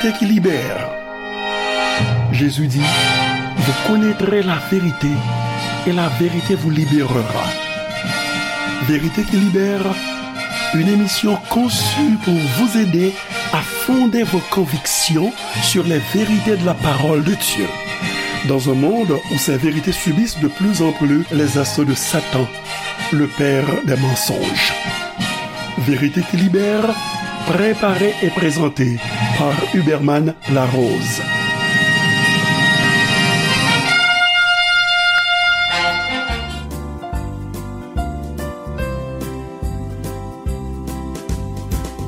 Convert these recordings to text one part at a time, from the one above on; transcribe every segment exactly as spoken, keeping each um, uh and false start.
Vérité qui libère. Jésus dit, vous connaîtrez la vérité et la vérité vous libérera. Vérité qui libère, une émission conçue pour vous aider à fonder vos convictions sur les vérités de la parole de Dieu. Dans un monde où ces vérités subissent de plus en plus les assauts de Satan, le père des mensonges. Vérité qui libère, préparée et présentée par Huberman Larose.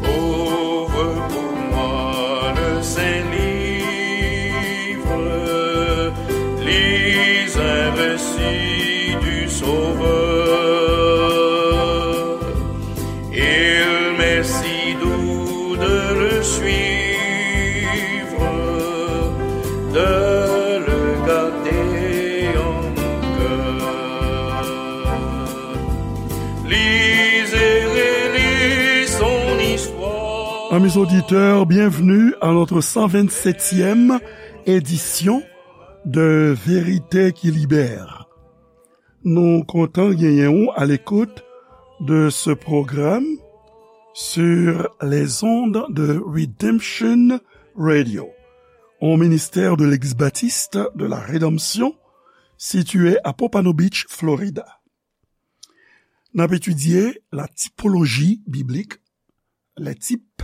Ouvre pour moi le Saint-Livre, lis un récit du Sauveur. Il m'est si doux de le suivre, de le garder en mon cœur. Lis et relis son histoire. Amis auditeurs, bienvenue à notre cent vingt-septième édition de Vérité qui libère. Nou kontan genyen w à l'écoute de ce programme sur les ondes de Redemption Radio, un ministère de l'Église baptiste de la Rédemption situé à Pompano Beach, Florida. N ap etidye la typologie biblique, les types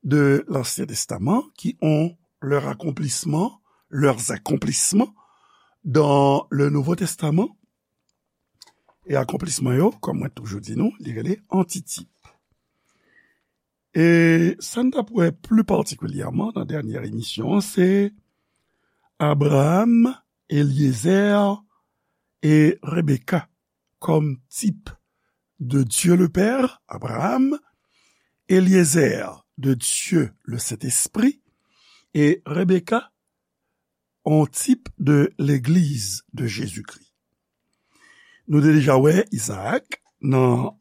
de l'Ancien Testament qui ont leur accomplissement, leurs accomplissements dans le Nouveau Testament. E akonplisman yo, kòm mwen toujou di nou, li rele antitip. E sa n t ap wè pli patikilyèman nan dènyè emisyon an, se Abraham, Eliezer e Rebecca kòm tip de Dieu le Père, Abraham, Eliezer de Dieu le Saint-Esprit, e Rebecca, on tip de Legliz de Jezikri. Nou te deja wè Izaak nan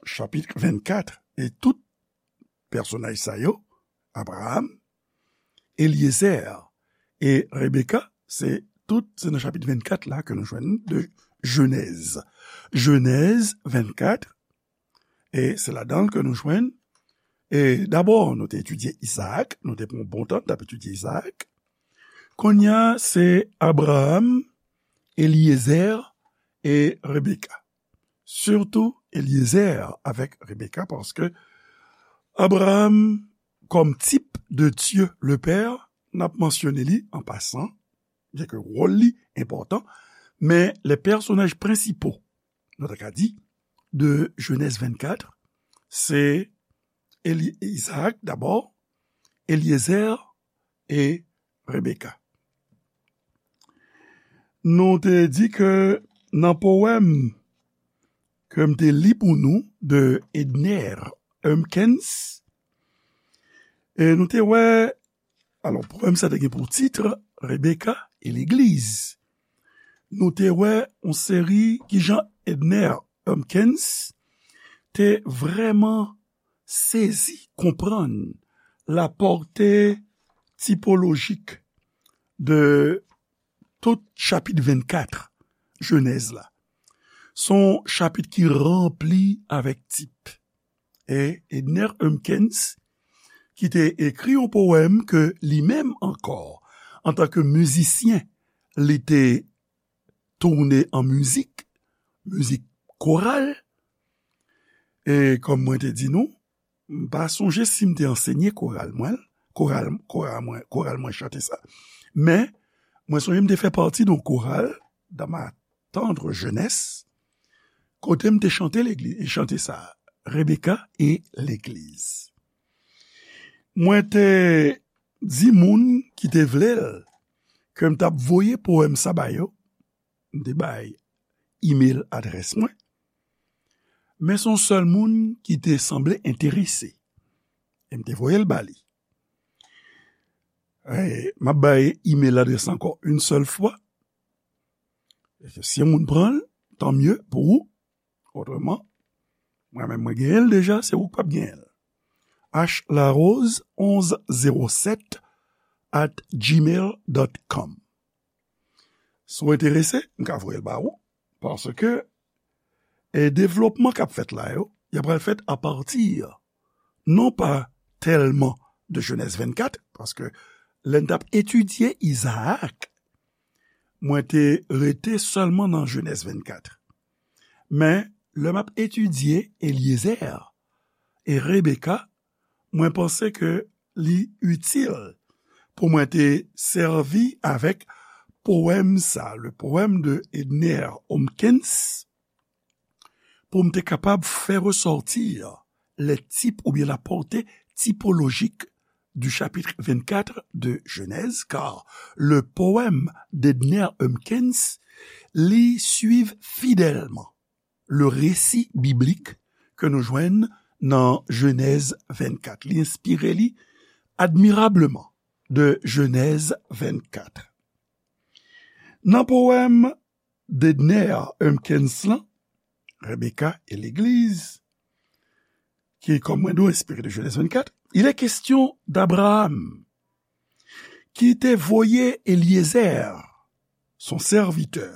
chapit vennkat, e tout pèsonaj sa yo, Abraham, Eliezer e Rebecca, se tout, se nan chapit vennkat la ke nou jwenn de Jenèz. Jenèz vennkat, e se ladan l ke nou jwenn, e dabò, nou te etidye Izaak, nou te pran bon tan, n t ap etidye Izaak. Kounye a, se Abraham, Eliezer e Rebecca. Sitou Eliezer avèk Rebecca, paske Abraham, kòm tip de Dieu le Père, n ap mansyone li an pasan, byen ke wòl li enpòtan, men les personnages principaux, nou ta ka di, de Jenèz vennkat, se Eli-, Izaak dabò, Eliezer e Rebecca. Nou te di ke nan powèm ke m te li pou nou de Edner Humpkins, e nou te wè, alò, powèm sa te gen pou tit Rebecca e Legliz. Nou te wè yon seri kijan Edner Humpkins te vrèman sezi konprann la pòte tipolojik de tout chapit vennkat Jenèz la. Se yon chapit ki ranpli avèk tip. E Edner Humpkins, ki te ekri yon powèm ke li menm ankò, antanke mizisyen, li te tounen an mizik, mizik koral. E kòm mwen te di nou, m pa sonje si m te ansenye koral mwen, koral, koral mwen, koral mwen chante sa. Men, mwen sonje m te fè pati de yon koral dans ma tendre jeunesse, kote m te chante legliz, chante sa, Rebecca e Legliz. Mwen te di moun ki te vle l ke m t ap voye powèm sa ba yo, m te bay email adrès mwen, men se yon sèl moun ki te sanble enterese, e m te voye l ba li. E, m ap bay email adrès ankò yon sèl fwa. E si yon moun pran l, tan mye pou ou. Otreman, mwen menm mwen genyen l deja, se ou k p ap genyen l. H Larose onz zewo sèt at gmail dot com. Si w enterese, m ka voye l ba ou, paske e devlopman k ap fèt la yo, y ap pral fèt apati non pa tèlman de Jenèz vennkat, paske lè n t ap etidye Izaak, mwen te rete sèlman nan Jenèz vennkat. Men, lè m ap etidye Elyezè e Rebeka, mwen panse ke li itil pou mwen te sèvi avèk powèm sa, le poème de Edner Hopkins, pou m te kapab fè resòti le type ou bien la portée typologique du chapitre vingt-quatre de Genèse, car le poème d'Edner Hopkins li suiv fidèlman le récit biblique ke nou jwenn nan Jenèz vennkat. Li enspire li admirableman de Jenèz vennkat. Nan powèm Dedner Humpkins lan, Rebecca et l'Église, ki, kòm mwen di w, enspire de Genèse vingt-quatre, il est question d'Abraham, ki te voye Eliezer, son sèvitè,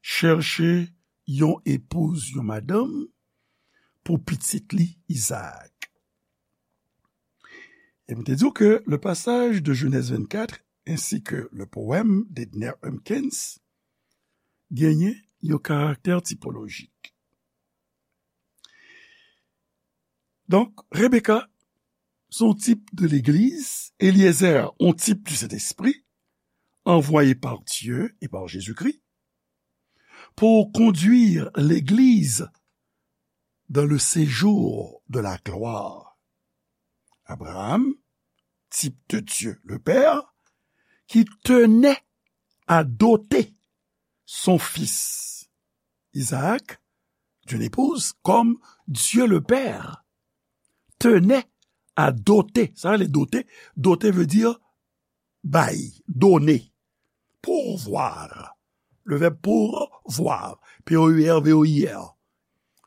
chèche yon epouz, yon madanm, pou pitit li, Izaak. E m te di w ke le passage de Genèse vingt-quatre ainsi que le poème d'Edner Humpkins genyen yon karaktè tipolojik. Donk, Rebecca, se yon tip de legliz, Eliezer, yon tip du Saint-Esprit, envoyé par Dieu et par Jésus-Christ, pour conduire l'Église dans le séjour de la gloire. Abraham, type de Dieu le Père, qui tenait à doter son fils Isaac d'une épouse comme Dieu le Père tenait à doter. Sa vle doter. Doter veut dire bay, donner, pourvoir. Le verbe pourvoir, P O U R V O I R.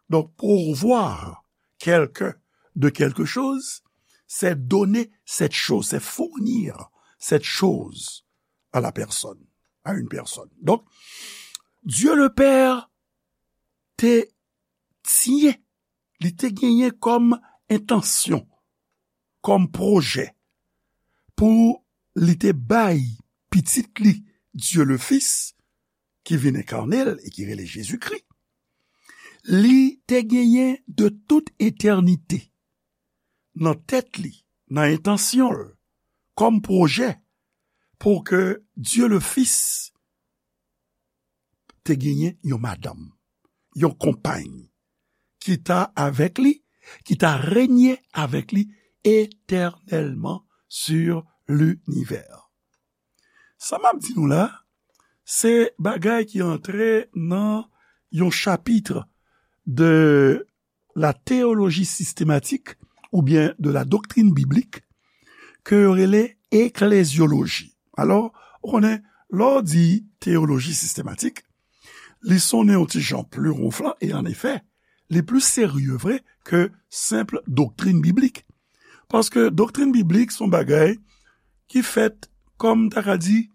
Donc, pourvoir quelqu'un de quelque chose, c'est donner cette chose, c'est fournir cette chose à la personne, à une personne. Donc, Dieu le Père te tyen, li te genyen kòm entansyon, kòm pwojè, pou li te bay pitit li, Dieu le Fils, ki vin enkane l e ki rele Jezikri, li te genyen de tout etènite nan tèt li, nan entansyon l, kòm pwojè, pou ke Dieu le Fils te genyen yon madanm, yon konpay, ki ta avèk li, ki ta renye avèk li etènèlman sur l'univers. Sa m ap di nou la, se bagay ki antre nan yon chapit de la théologie systématique oubyen de la doctrine biblique ke yo rele eklezyoloji. Alò, ou konnen, lè w di teyoloji sistematik, li sonnen yon ti jan pli wonflan, e an efè, li pli serye vre ke senp doktrin biblik. Paske doktrin biblik se yon bagay ki fèt, kòm m ta ka di,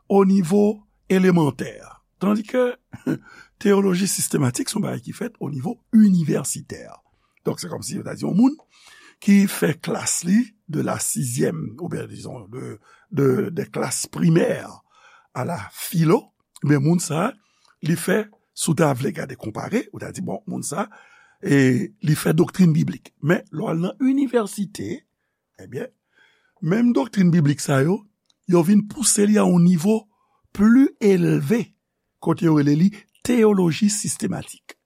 o nivo elemantè. Tandis ke teyoloji sistematik se yon bagay ki fèt o nivo inivèsitè. Donk, se kòmsi yo ta di yon moun ki fè klas li de la sizyèm, oubyen, dizon, de, de, de klas primè a la filo, men moun sa, li fè, si w ta vle gade konpare, ou ta di, bon, moun sa, e li fè doktrin biblik. Men, lè w al nan inivèsite, ebyen, menm doktrin biblik sa yo, yo vin pouse li a yon nivo pli elve, kote yo rele li teyoloji sistematik.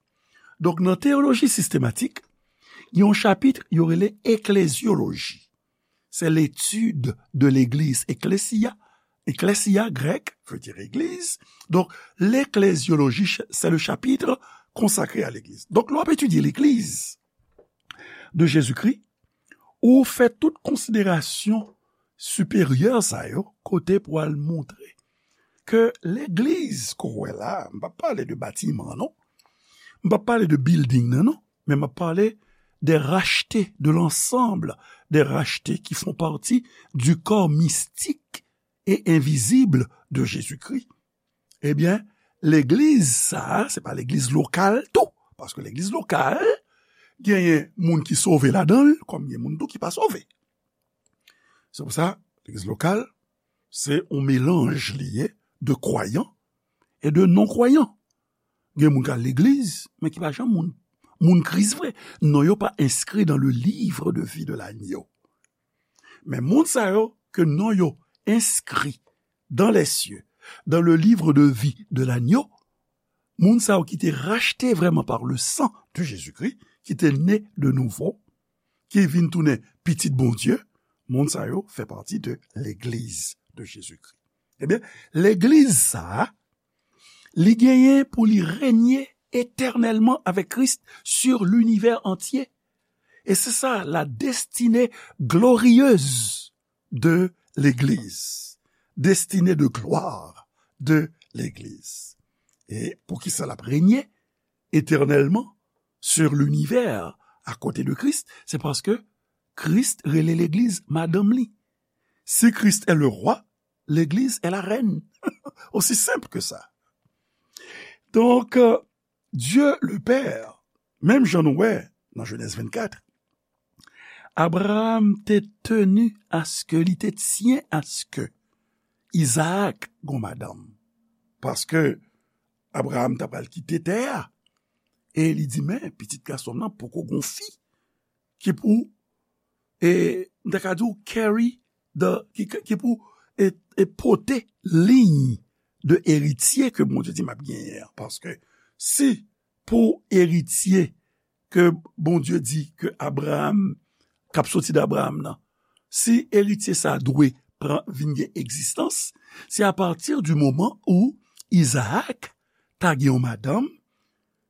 Donk, nan teyoloji sistematik, gen yon chapit yo rele eklezyoloji. C'est l'étude de l'église. Ekklesia, ekklesia grèk veut dire église. Donc, l'ecclésiologie, c'est le chapitre consacré à l'église. Donc, lè w ap etidye legliz de Jezikri, ou fè tout konsiderasyon siperyè sa yo, kote pou al montre ke legliz ke w wè la, m p ap pale de batiman, non. M p ap pale de building nan, non. Men m ap pale des rachetés, de l'ensemble des rachetés qui font partie du corps mystique et invisible de Jésus-Christ. Ebyen, legliz sa a, se pa legliz lokal tou. Paske legliz lokal, genyen moun ki sove ladan l, kòm gen moun tou ki pa sove. Se pou sa, legliz lokal, se yon melanj li ye de kwayan e de non-kwayan. Gen moun k al legliz, men ki pa janm moun, moun Kris vre. Non yo pa enskri dans le livre de vie de l'agneau. Men moun sa yo ke non yo enskri dans les cieux, dans le livre de vie de l'agneau, moun sa yo ki te rachte vrèman par le sang de Jésus-Christ, ki te ne de nouvo, ki vin tounen pitit Bondye, moun sa yo fè pati de legliz de Jésus-Christ. Ebyen, legliz sa a, li genyen pou li renye etènèlman avèk Kris sur l'univers entier. Et c'est ça la destinée glorieuse de l'Église, destinée de gloire de l'Église. E poukisa l ap renye etènèlman sur l'univers à côté de Christ? Se paske Kris rele legliz madanm li. Si Christ est le roi, l'église est la reine. Aussi simple que ça. Donk, euh, Dieu le Père, menm jan nou wè nan Jenèz vennkat, Abraham te tenu à ce que, li te tyen à ce que Izaak gon madanm. Paske Abraham ta pral kite tè a. E li di, men, pitit gason m nan poko gon fi ki pou, e, m ta ka di w, carry the, ki, ki pou, e, e pote liy de eritye ke Bondye di m ap genyen an. Paske si pou eritye ke Bondye di ke Abraham, k ap soti de Abraham nan, si eritye sa dwe pran, vin gen egzistans, se apati di moman ou Izaak ta gen yon madanm,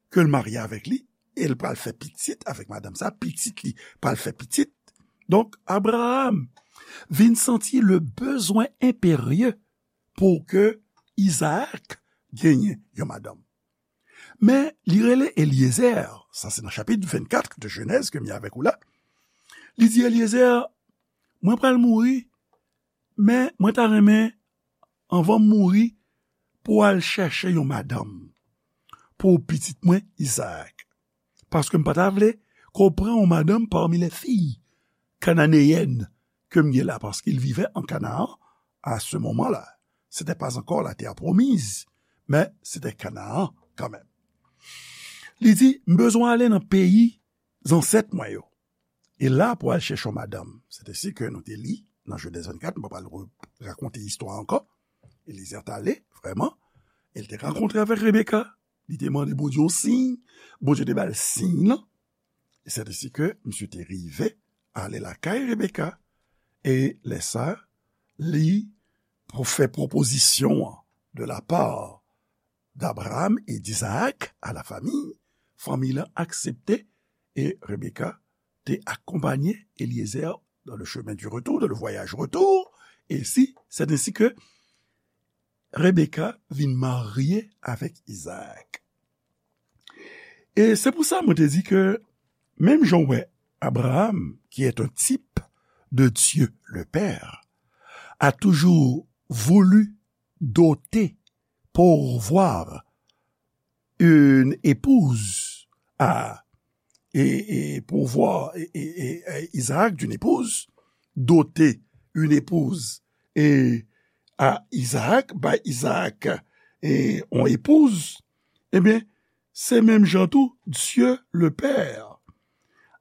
ke l marye avèk li, e l pral fè pitit avèk madanm sa, pitit li pral fè pitit. Donk, Abraham vin santi le bezwen enperye pou ke Izaak genyen yon madanm. Men, li rele Eliezer, sa se nan chapit vennkat de Jenèz ke m ye avèk ou la. Li di, Eliezer, mwen pral mouri, men mwen ta renmen, anvan m mouri, pou w al chèche yon madanm pou pitit mwen Izaak. Paske m pa ta vle ke w pran yon madanm parmi les filles cananéennes ke m gen la, parce qu'il vivait en Canaan à ce moment-là. C'était pas encore la terre promise, mais c'était Canaan quand même. Li di, m bezwen ale nan peyi zansèt mwen yo. E la pou al chèche yon madanm. Se te si ke nou te li nan Jenèz vennkat, m pa pral re-, rakonte istwa ankò. Eliezer t ale, vrèman. E l te rankontre avèk Rebeka. Li te mande Bondye yon siy. Bondye te ba l siy lan. E se te si ke misye te rive ale lakay Rebeka. E lè sa, li pou fè pwopozisyon an de la part d'Abraham et d'Isaac à la famille. Fanmi lan aksepte e Rebeka te akonpanye Eliezer dans le chemin du retour, dans le voyage retour. E si, c'est ainsi que Rebeka vin marye avèk Izaak. E se pou sa mwen te di ke menm jan w wè Abraham, qui est un type de Dieu le Père, a toujours voulu doter, pourvoir une épouse à, et, et pourvoir et, et, et, et Isaac d'une épouse, doter une épouse et à Isaac, bay Isaac et on épouse, ebyen, se menm jan tou, Dieu le Père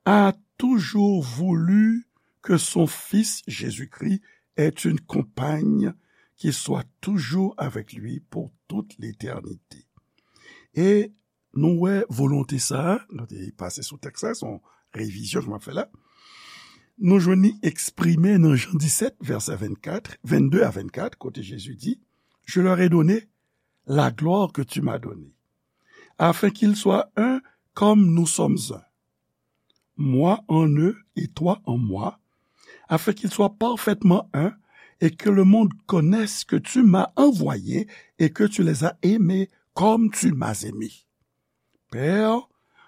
a toujours voulu que son Fils Jésus-Christ ait une compagne qui soit toujours avec lui pour toute l'éternité. E nou wè volonte sa a, nou te pase sou tèks sa, se yon revizyon ke m ap fè la. Nou jwenn li eksprime nan Jan disèt, vèsè vennkat, vennde a vennkat, kote Jezi di, Je leur ai donné la gloire que tu m'as donnée, afin qu'ils soient un comme nous sommes un. Moi en eux et toi en moi, afin qu'ils soient parfaitement un, et que le monde connaisse que tu m'as envoyé et que tu les as aimés comme tu m'as aimé. Père,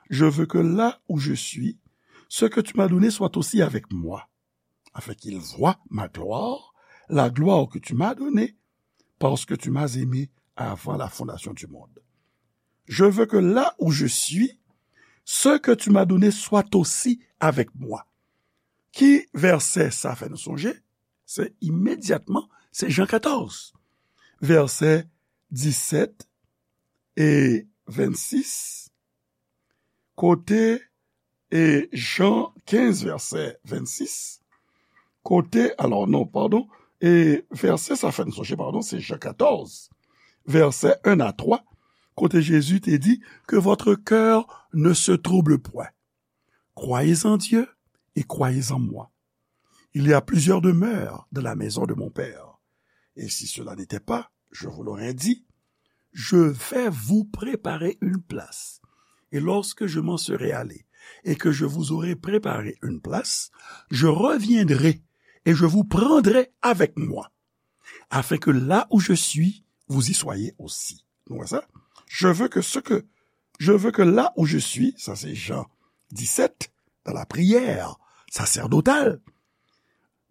je veux que là où je suis, Ce que tu m'as donné soit aussi avec moi, afin qu'ils voient ma gloire, la gloire que tu m'as donnée, parce que tu m'as aimé avant la fondation du monde. Je veux que là où je suis, ce que tu m'as donné soit aussi avec moi. Ki vèsè sa fè nou sonje? Se imedyatman, se Jan katòz, vèsè disèt e vennsis, kote, e Jan kenz, vèsè vennsis, kote, alò non, padon, e vèsè sa fè n sonje, padon, se Jan katòz, vèsè en a twa, kote Jezi te di, Que votre cœur ne se trouble point. Croyez en Dieu et croyez en moi. Il y a plusieurs demeures dans la maison de mon Père. Et si cela n'était pas, je vous l'aurais dit. Je vais vous préparer une place. Et lorsque je m'en serai allé et que je vous aurai préparé une place, je reviendrai et je vous prendrai avec moi, afin que là où je suis, vous y soyez aussi. Nou wè sa? Je veux que ce que, je veux que là où je suis, sa se Jan disèt, dans la prière sacerdotale,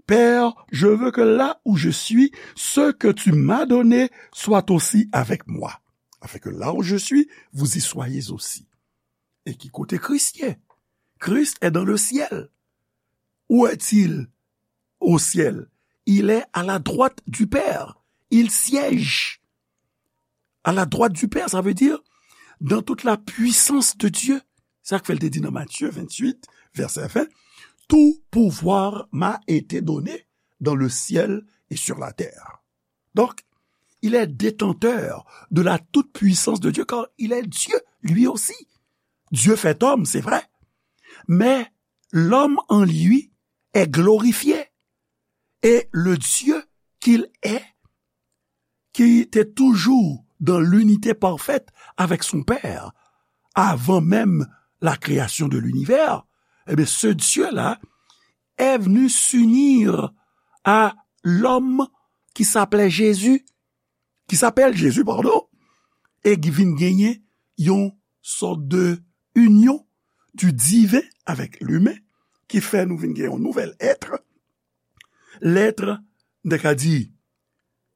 Père, je veux que là où je suis, ce que tu m'as donné soit aussi avec moi, afin que là où je suis, vous y soyez aussi. E ki kote Kris ye? Christ est dans le ciel. Où est-il? Au ciel. Il est à la droite du Père. Il siège à la droite du Père. Ça veut dire, dans toute la puissance de Dieu. Sa k fè l te di nan Matthieu vingt-huit, verset vingt, Tout pouvoir m'a été donné dans le ciel et sur la terre. Donc, il est détenteur de la toute-puissance de Dieu, car il est Dieu, lui aussi. Dieu fait homme, c'est vrai, mais l'homme en lui est glorifié. Et le Dieu qu'il est, qui était toujours dans l'unité parfaite avec son Père, avant même la création de l'univers, eh bien, ce Dieu-là est venu s'unir à l'homme qui s'appelait Jésus, ki s'appelle Jésus, pardon, e ki vin genyen yon sòt de union du divin avec l'humain, ki fè nou vin gen yon nouvel être, l'être, nou ka di,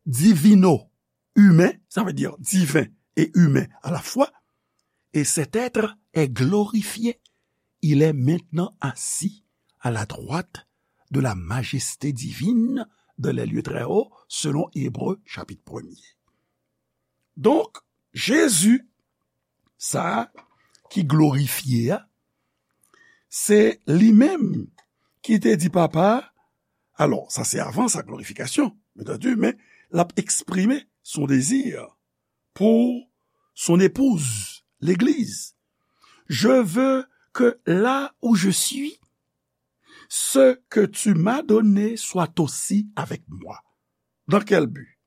divino-humain, ça veut dire divin et humain à la fois, et cet être est glorifié. Il est maintenant assis à la droite de la majesté divine dans les lieux très hauts, selon Hébreux chapitre premier. Donk, Jezi, sa a ki glorifye a, se li menm ki te di Papa a, alò, sa se avan sa glorifikasyon, bien entendu, men l ap eksprime son dezi pou son epouz, legliz. Je veux que là où je suis, ce que tu m'as donné soit aussi avec moi. Dans quel but?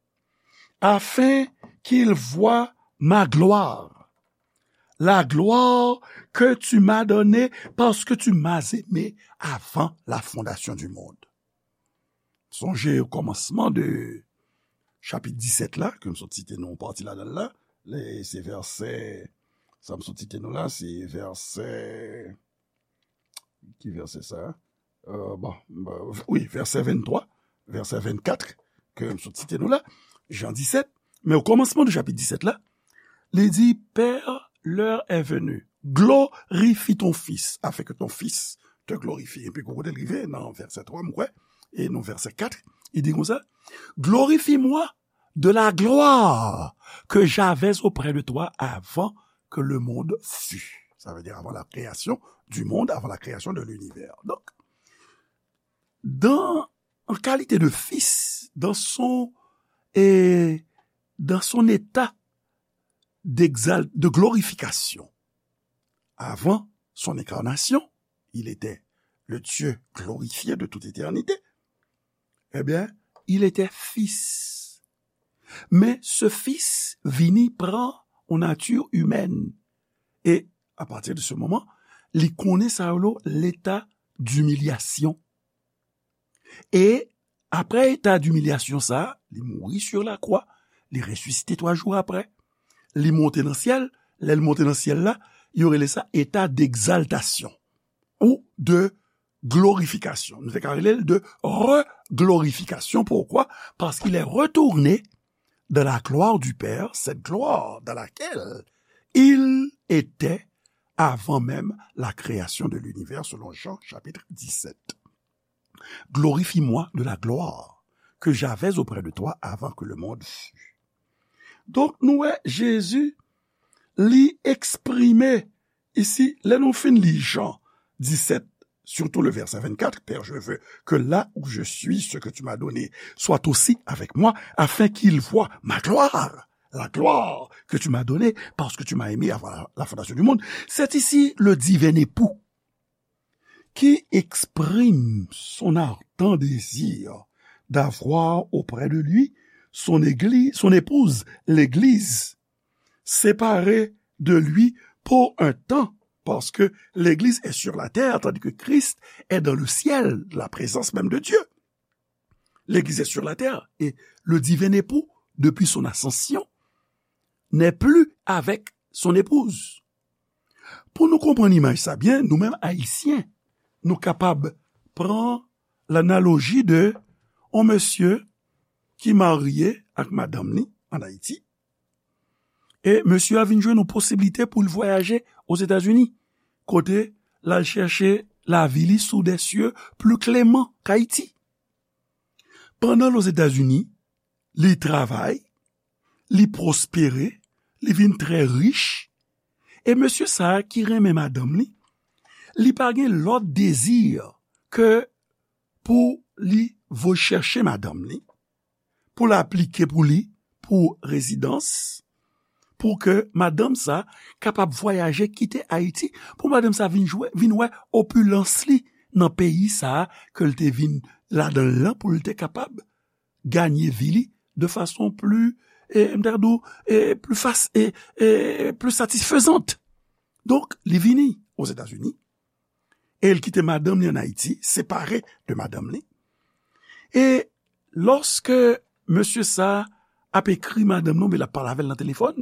Afin qu'ils voient ma gloire, la gloire que tu m'as donnée parce que tu m'as aimé avant la fondation du monde. Sonje o kòmansman de chapit disèt la, ke m sot site nou yon pati ladan l la, le, se vèsè, sa m sot site nou la, se vèsè, ki vèsè sa? Euh, bon, euh, wi, vèsè venntwa, vèsè vennkat, ke m sot site nou la, Jan disèt, men o kòmansman de chapit disèt la, li di, Père, l'heure est venue, glorifie ton Fils, afin que ton Fils te glorifie. Epi kou kote l rive nan vèsè twa, m kwè, e nan vèsè kat, li di konsa, Glorifie-moi de la gloire que j'avais auprès de toi avant que le monde fût. Ça veut dire avant la création du monde, avant la création de l'univers. Donc, dans, en qualité de fils, dans son, et dans son état d'exal-, de glorification, avant son incarnation, il était le Dieu glorifié de toute éternité, eh bien, il était fils. Men se Fis vini pran yon nati imèn. E apati de se moman, li konnen sa yo leta dimilyasyon. E apre eta dimilyasyon sa, li mouri sur la croix, li resisite twa jou apre, li monte nan syèl, lè l monte nan syèl la, yo rele sa eta degzaltasyon. ou de glorification. Nou te ka rele l de reglorification. Pourquoi? Parce qu'il est retourné dans la gloire du Père, cette gloire dans laquelle il était avant même la création de l'univers, selon Jean chapitre dix-sept. Glorifie-moi de la gloire que j'avais auprès de toi avant que le monde fût. Donk, nou wè, Jezi, li eksprime isi, lè nou fin li Jan disèt, surtout le verset vingt-quatre, Père, je veux que là où je suis, ce que tu m'as donné soit aussi avec moi, afin qu'ils voient ma gloire, la gloire que tu m'as donnée, parce que tu m'as aimé avant la, la fondation du monde. C'est ici le divin époux qui exprime son ardent désir d'avoir auprès de lui son église, son épouse, l'Église, séparée de lui pour un temps, parce que l'Église est sur la terre, tandis que Christ est dans le ciel, la présence même de Dieu. L'Église est sur la terre, et le divin époux, depuis son ascension, n'est plus avec son épouse. Pou nou konprann imaj sa byen, nou menm Ayisyen, nou kapab pran lanaloji de yon mesye ki marye ak madanm li ann Ayiti. E mesye a vin jwenn yon posiblite pou l vwayaje Ozetazini, kote l al chèche lavi li sous des cieux plus cléments qu'Haïti. Pandan l Ozetazini, li travay, li pwospere, li vin trè rich. E mesye sa a ki renmen madanm li, li pa gen lòt dezi ke pou li voye chèche madanm li, pou l aplike pou li, pou rezidans, pou ke madanm sa kapab vwayaje, kite Ayiti, pou madanm sa vin jwe, vin wè opilans li nan peyi sa a ke l te vin ladan l lan, pou l te kapab ganye vi li de fason pli, e, m ta di w, e, pli fas-, e, e, pli satisfezant. Donk, li vini Ozetazini, e l kite madanm li ann Ayiti, separe de madanm li. E lòske mesye sa a ap ekri madanm li, oubyen l ap pale avè l nan telefòn,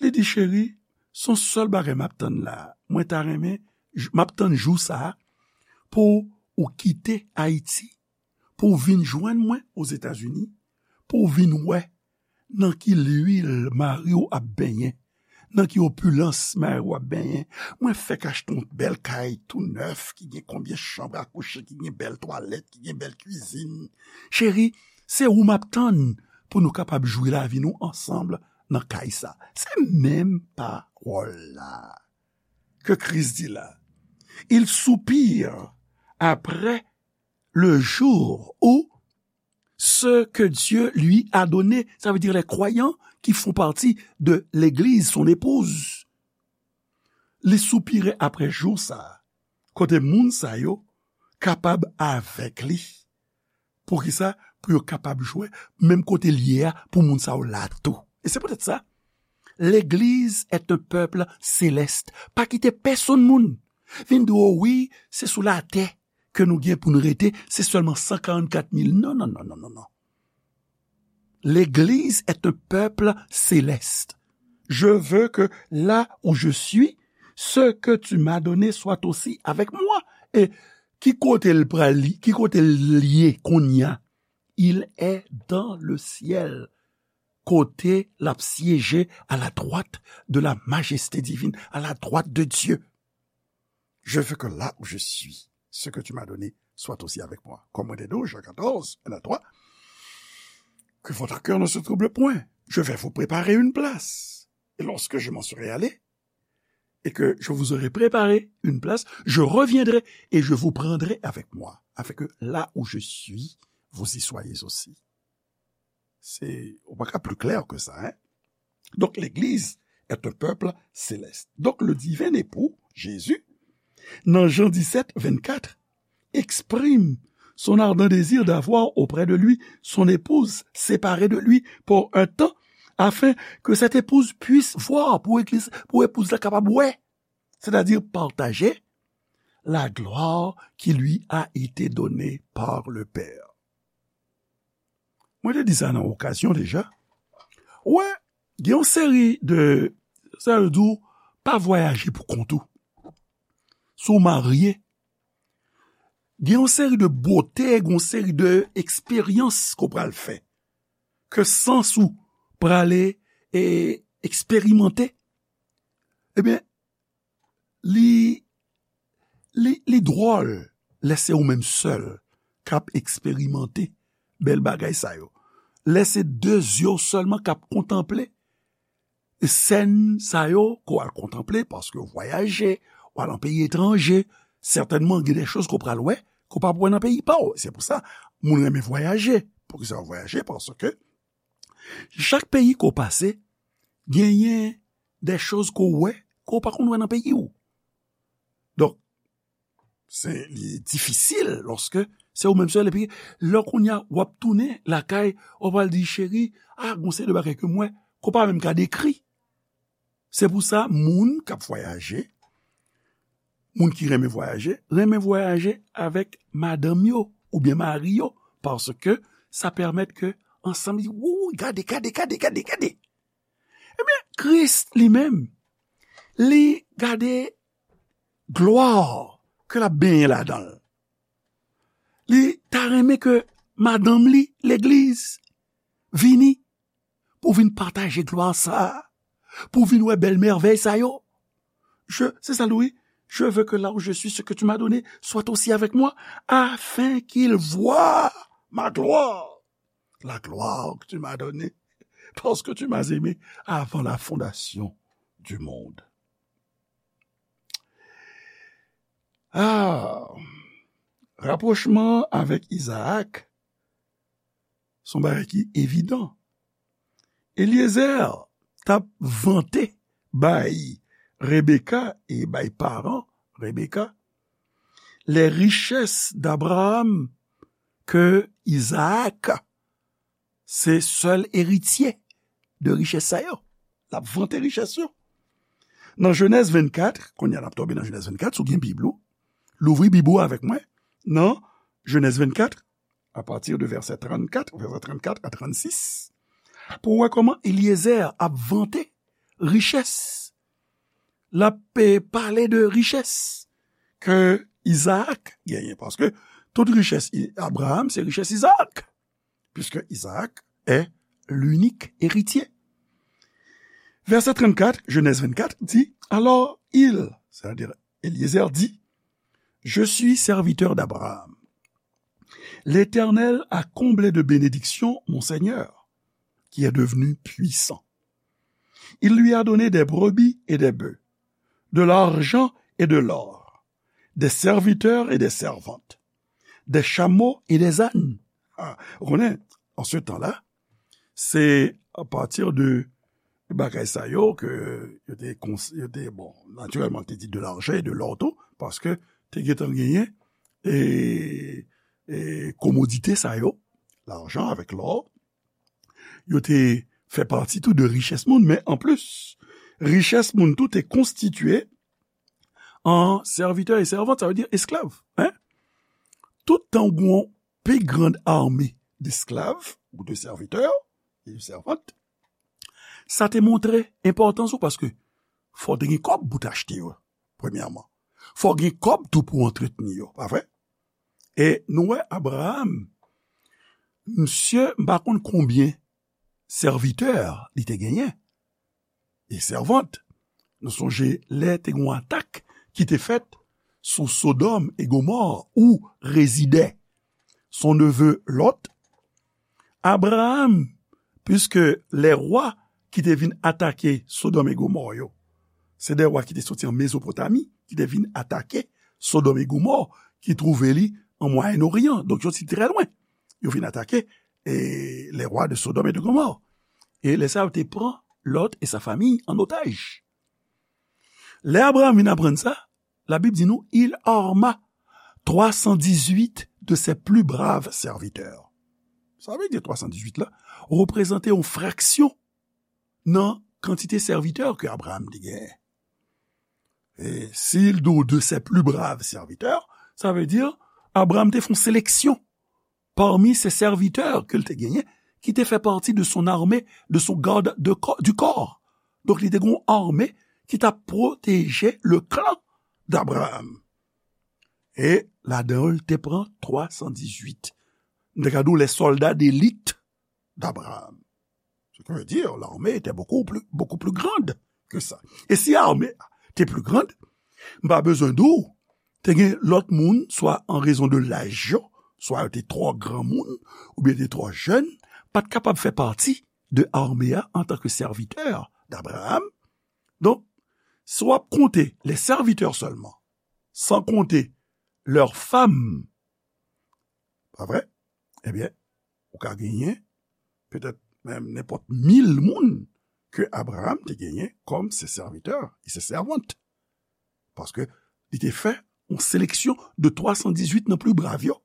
li di, cheri, se yon sèl bagay m ap tann la. Mwen ta renmen, j-, m ap tann jou sa a pou ou kite Ayiti, pou w vin jwenn mwen Ozetazini, pou w vin wè nan ki lwil mari w ap benyen, nan ki opilans mari w ap benyen. Mwen fèk achte yon bèl kay tou nèf, ki gen konbyen chanm a kouche, ki gen bèl twalèt, ki gen bèl kwizin. Cheri, se ou m ap tann pou nou kapab jwi lavi nou ansanm nan kay sa. Se menm pawòl la ke Kris di la. Il soupire après le jour où ce que Dieu lui a donné, ça veut dire les croyants qui font partie de l'Église, son épouse. Li soupire apre jou sa a, kote moun sa yo kapab avèk li. Poukisa? Pou yo kapab jwe menm kote l ye a, pou moun sa yo la tou. E se poutèt sa, l'Église est un peuple céleste. Pa kite pèsonn moun vin di w, wi, se sou latè ke nou gen pou n rete, se sèlman san karannkat mil. Non, non, non, non, non, non. L'Église est un peuple céleste. Je veux que là où je suis, ce que tu m'as donné soit aussi avec moi. E ki kote l pral, ki kote l ye kounye a? Il est dans le ciel. Kote l ap syeje à la droite de la majesté divine, à la droite de Dieu. Je veux que là où je suis, ce que tu m'as donné soit aussi avec moi. Kòm mwen te di w, Jan katòz, en a twa, que votre cœur ne se trouble point. Je vais vous préparer une place. Et lorsque je m'en serai allé, et que je vous aurai préparé une place, je reviendrai et je vous prendrai avec moi, afin que là où je suis, vous y soyez aussi. Se, ou pa ka pli klè ke sa, hein? Donc, l'Église est un peuple céleste. Donc, le divin époux, Jésus, nan Jan disèt, vennkat, exprime son ardent désir d'avoir auprès de lui son épouse séparée de lui pour un temps, afin que cette épouse puisse voir, pou egliz, pou epouz la kapab wè, c'est-à-dire partager la gloire qui lui a été donnée par le Père. Mwen te di sa nan okazyon deja. Ou wè, gen yon seri de, sa yo di w, pa vwayaje pou kont ou. Si w marye, gen yon seri de bote, gen yon seri de eksperyans ke w pral fè, ke sans ou prale e eksperimante, ebyen, li, li, li dwòl lè se ou menm sèl k ap eksperimante bèl bagay sa yo. Lè se de zye w sèlman k ap kontanple sèn sa yo ke w al kontanple, paske w vwayaje, w al nan peyi etranje, sètènman, gen de choz ke w pral wè, ke w p ap wè nan peyi pa w. Se pou sa, moun renmen vwayaje. Poukisa w vwayaje? Paske chak peyi ke w pase, genyen de choz ke w wè, ke w pa konn wè nan peyi w. Donk, se, li difisil lòske se ou menm sèl, epi lè kounye a w ap tounen lakay, w pral di, cheri, a, gon seri de bagay ke m wè, ke w pa menm ka dekri. Se pou sa, moun k ap vwayaje, moun ki renmen vwayaje, renmen vwayaje avèk madanm yo oubyen mari yo, paske sa pèmèt ke ansanm, yo, gade, gade, gade, gade, gade. Ebyen, Kris li menm, li gade glwa ke l ap benyen ladan l. Li ta renmen ke madanm li, legliz, vini pou vin pataje glwa sa a, pou vin wè bèl mèvèy sa yo. Je, c'est ça, Louis. Je veux que là où je suis, ce que tu m'as donné soit aussi avec moi, afin qu'il voie ma gloire, la gloire que tu m'as donnée, parce que tu m'as aimé avant la fondation du monde. Ah, rapwochman avèk Izaak, se yon bagay ki evidan. Eliezer t ap vante bay Rebeka e bay paran Rebeka les richesses d'Abraham, ke Izaak se sèl eritye de richès sa yo. L ap vante richès yo. Nan Jenèz vennkat, kounye a n ap tonbe nan Jenèz vennkat, si w gen Bib ou, louvri Bib ou avèk mwen, nan Jenèz vennkat, apati de vèsè trannkat, vèsè trannkat a trannsis, pou w wè kòman Eliezer ap vante richès. L ap, eh, pale de richès ke Izaak genyen, paske tout richès I-, Abraham, se richès Izaak, puisque Isaac est l'unique héritier. Verset trente-quatre, Genèse vingt-quatre dit, alors il, c'est-à-dire Eliezer, dit, je suis serviteur d'Abraham. L'Éternel a comblé de bénédictions mon Seigneur, qui est devenu puissant. Il lui a donné des brebis et des bœufs, de l'argent et de l'or, des serviteurs et des servantes, des chameaux et des ânes. Ah, ou konnen, an se tan la, se apati de bagay sa yo ke yo te, kons-, yo te, bon, natirèlman, te di de l'argent et de l'or tou, paske te gentan genyen, e, e komodite sa yo, lajan avèk lò, yo te fè pati tou de richès moun, men anplis, richès moun tou te konstitye an servitè e sèvant, sa vle di esklav, en. Tout tan ou gen yon pi grand ame d'esklav ou de servitè e de sèvant, sa te montre enpòtans ou, paske fò w te gen kòb pou w te achte yo, premyèman. Fò w gen kòb tou pou w antretni yo, pa vre? E nou wè Abraham, misye, m pa konn konbyen sèvitè li te genyen, e sèvant. Nou sonje lè te gen yon atak ki te fèt sou Sodòm e Gomò, ou rezidè son neve Lòt, Abraham, puiske lè wa ki te vin atake Sodòm e Gomò yo, se de wa ki te soti an Mezopotami, ki te vin atake Sodòm e Gomò, ki twouve li an Mwayen Oryan. Donk, yo soti trè lwen. Yo vin atake, e, les rois de Sodome et de Gomorrhe. E lè sa, yo te pran Lòt e sa famiy an otaj. Lè Abraham vin aprann sa, Labib di nou, il arma trois cent dix-huit de ses plus braves serviteurs. Sa vle di twa san dizuit la reprezante yon fraksyon nan kantite sèvitè ke Abraham te genyen. E si l di w de ses plus braves serviteurs, sa vle di Abraham te fè yon seleksyon parmi se sèvitè ke l te genyen, ki te fè pati de son armée, de son garde de co-, du corps. Donk, li te gen yon ame ki t ap pwoteje le clan d'Abraham. E ladan yo, l te pran twa san dizuit. M te ka di w, les soldats d'élite d'Abraham. Ce qui veut dire, l'armée était beaucoup plus, beaucoup plus grande que ça. E si armée te plus grande, m pa bezwen di w, te gen lòt moun, swa an rezon de laj yo, swa yo te twò granmoun, oubyen te twò jèn, pa t kapab fè pati de armée a antanke sèvitè d'Abraham. Donk, si w ap konte les serviteurs seulement, sans compter leurs femmes, pa vre? Ebyen, ou ka genyen petèt menm nenpòt mil moun ke Abraham te genyen kòm se sèvitè e se sèvant. Paske li te fè yon seleksyon de twa san dizuit nan pli brav yo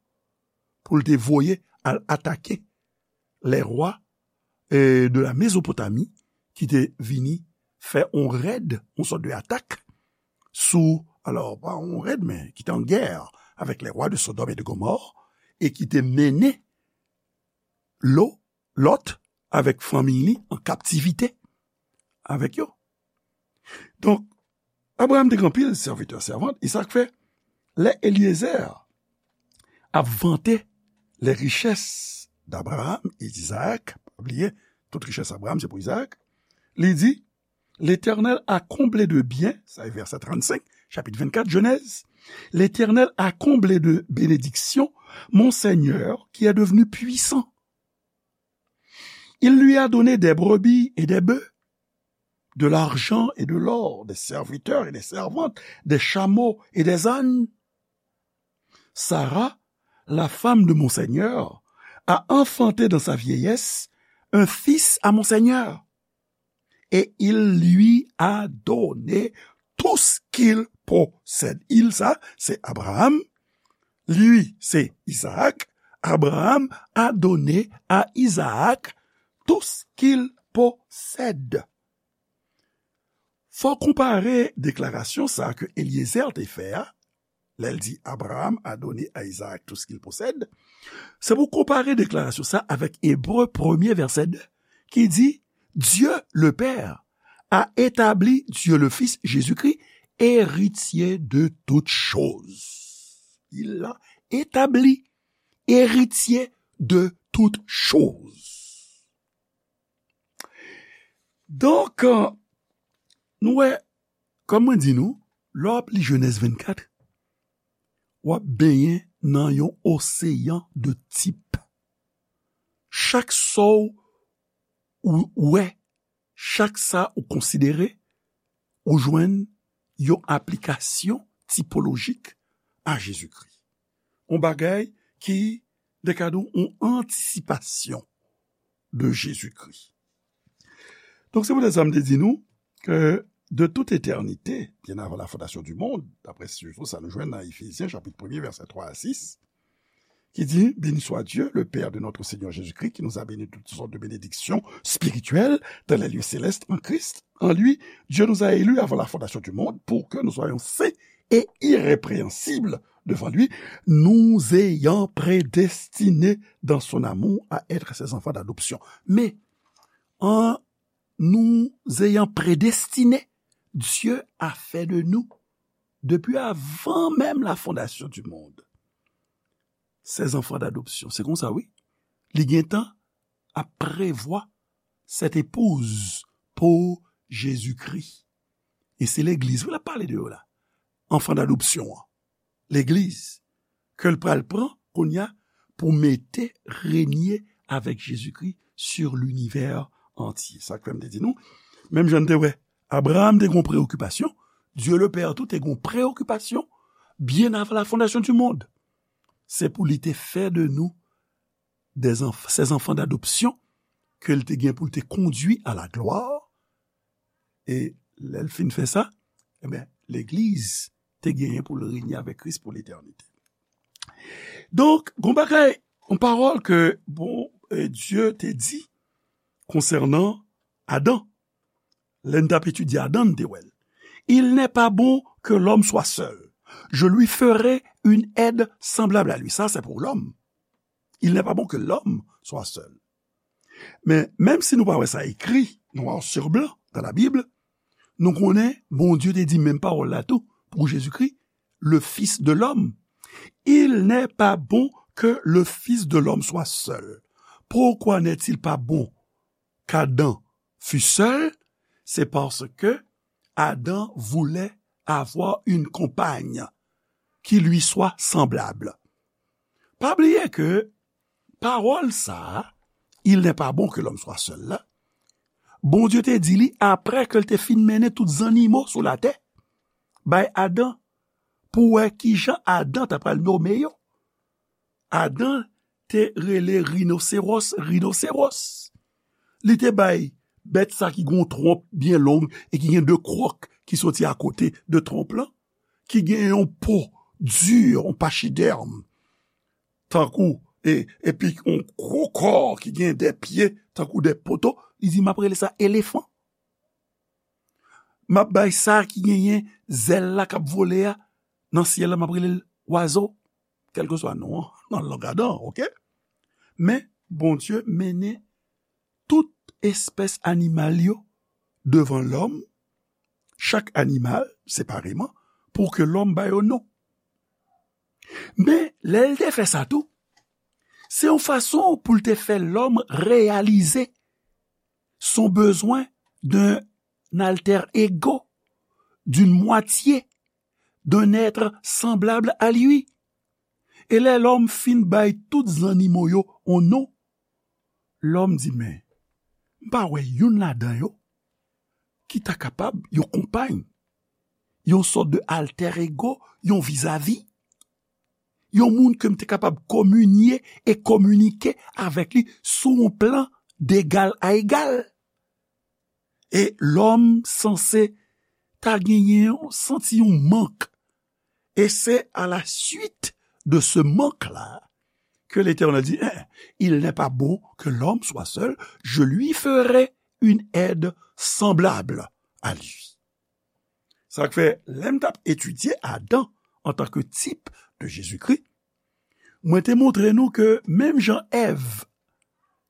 pou l te voye al atake les rois, eh, de la Mésopotamie ki te vini fè yon rèd, yon sòt de atak sou, alò, pa yon rèd, men ki te an gè avèk les rois de Sodome et de Gomorrhe, e ki te mennen Lo, Lòt, avèk fanmiy li an kaptivite avèk yo. Donk, Abraham te gen anpil sèvitè, sèvant, e sa k fè, lè Eliezer ap vante les richesses d'Abraham et d'Isaac, pa bliye, tout richès Abraham se pou Izaak, li di, L'Éternel a comblé de biens, sa e vèsè trannsenk, chapit vennkat, Jenèz, L'Éternel a comblé de bénédictions mon Seigneur qui est devenu puissant. Il lui a donné des brebis et des bœufs, de l'argent et de l'or, des serviteurs et des servantes, des chameaux et des ânes. Sarah, la femme de mon Seigneur, a enfanté dans sa vieillesse un fils à mon Seigneur. Et il lui a donné tout ce qu'il possède. Il, sa, se Abraham. Lui, se Izaak. Abraham a donné à Isaac tout ce qu'il possède. Fò konpare deklarasyon sa ke Eliezer te fè a, lè l di, Abraham a donné à Isaac tout ce qu'il possède, se pou konpare deklarasyon sa avèk Ebre premye vèsè de, ki di, Dieu le Père a établi Dieu le Fils, Jésus-Christ, héritier de toutes choses. Il l'a établi héritier de toutes choses. Donk, nou wè, kòm mwen di nou, lè w ap li Jenèz vennkat, w ap benyen nan yon oseyan de tip. Chak sa w wè, chak sa ou konsidere, ou jwenn yon aplikasyon tipolojik a Jezikri. Yon bagay ki, de ka di w, yon antisipasyon de Jezikri. Donk, se poutèt sa m te di nou ke de toute éternité, bien avant la fondation du monde, daprè sijou sa nou jwenn nan Efezyen, chapit premye, vèsè twa a sis, qui dit, Béni soit Dieu, le Père de notre Seigneur Jésus-Christ, qui nous a bénis de toutes sortes de bénédictions spirituelles dans les lieux célestes en Christ. En lui, Dieu nous a élus avant la fondation du monde pour que nous soyons saints et irrépréhensibles devant lui, nous ayant prédestinés dans son amour à être ses enfants d'adoption. Mais en nous ayant prédestinés, Dieu a fait de nous, depuis avant même la fondation du monde, ses enfants d'adoption. Se konsa, wi. Li gentan ap prevwa cette épouse pou Jezikri. E se legliz, wi, l ap pale de yo la. Enfant d'adoption an. Legliz, ke l pral pran, kounye a, pou mete, renye avèk Jezikri sur l'univers entier. Sa k fè m te di nou, menm jan n te wè, Abraham te gen yon preokipasyon, Dieu le Père tou te gen yon preokipasyon, bien avant la fondation du monde. Se pou li te fè de nou des enf-, ses enfants d'adoption, ke l te gen pou l te kondui à la gloire. E lè l fin fè sa, ebyen, legliz te genyen pou l renye avèk Kris pou letènite. Donk, gon bagay, yon pawòl ke, bon, e, Dye te di konsènan Adan. Lè n t ap etidye Adan, n te wè l. Il n'est pas bon que l'homme soit seul. Je lui ferai une aide semblable à lui. Ça, c'est pour l'homme. Il n'est pas bon que l'homme soit seul. Men, menm si nou pa wè sa ekri, noir sur blanc, dans la Bible, nou konnen Bondye te di menm pawòl la tou pou Jezikri, le Fils de l'homme. Il n'est pas bon que le Fils de l'homme soit seul. Pourquoi n'est-il pas bon qu'Adam fût seul ? C'est parce que Adam voulait avoir une compagne qui lui soit semblable. Pa bliye ke pawòl sa a, il n'est pas bon que l'homme soit seul la, Bondye te di li apre ke l te fin mennen tout zannimo sou latè bay Adan pou wè kijan Adan ta pral nome yo. Adan te rele rinoseros, rinoseros. Li te bay bèt sa ki gen yon twonp byen long e ki gen de kwòk ki soti akote de twonp lan, ki gen yon po di, yon pachidèm, tankou, e, epi yon gwo kò ki gen de pye, tankou de poto, li di, "M ap rele sa elefan." M ap bay sa ki genyen zèl la k ap vole a nan syèl la, m ap rele l wazo, kèlkeswa non an, nan lang Adan, oke? Men, Bondye mennen tout espès animal yo devan lòm, chak animal separeman, pou ke lòm ba yo non. Men, lè l te fè sa tou, se yon fason pou l te fè lòm reyalize son bezwen d'un alter ego, d'une moitié, d'un être semblable à lui. E lè lòm fin bay tout zannimo yo yon non, lòm di, "Men, m pa wè youn ladan yo ki ta kapab yon konpay, yon sòt de alter ego, yon vizavi, yon moun ke m te kapab kominye e kominike avèk li sou yon plan degal a egal." E lòm sanse ta genyen yon, santi yon mank. Et c'est à la suite de ce manque-là que l'Éternel dit, "Hein, il n'est pas bon que l'homme soit seul, je lui ferai une aide semblable à lui." Sa k fè, lè m t ap etidye Adan antanke tip de Jezikri, mwen te montre nou ke menm jan Èv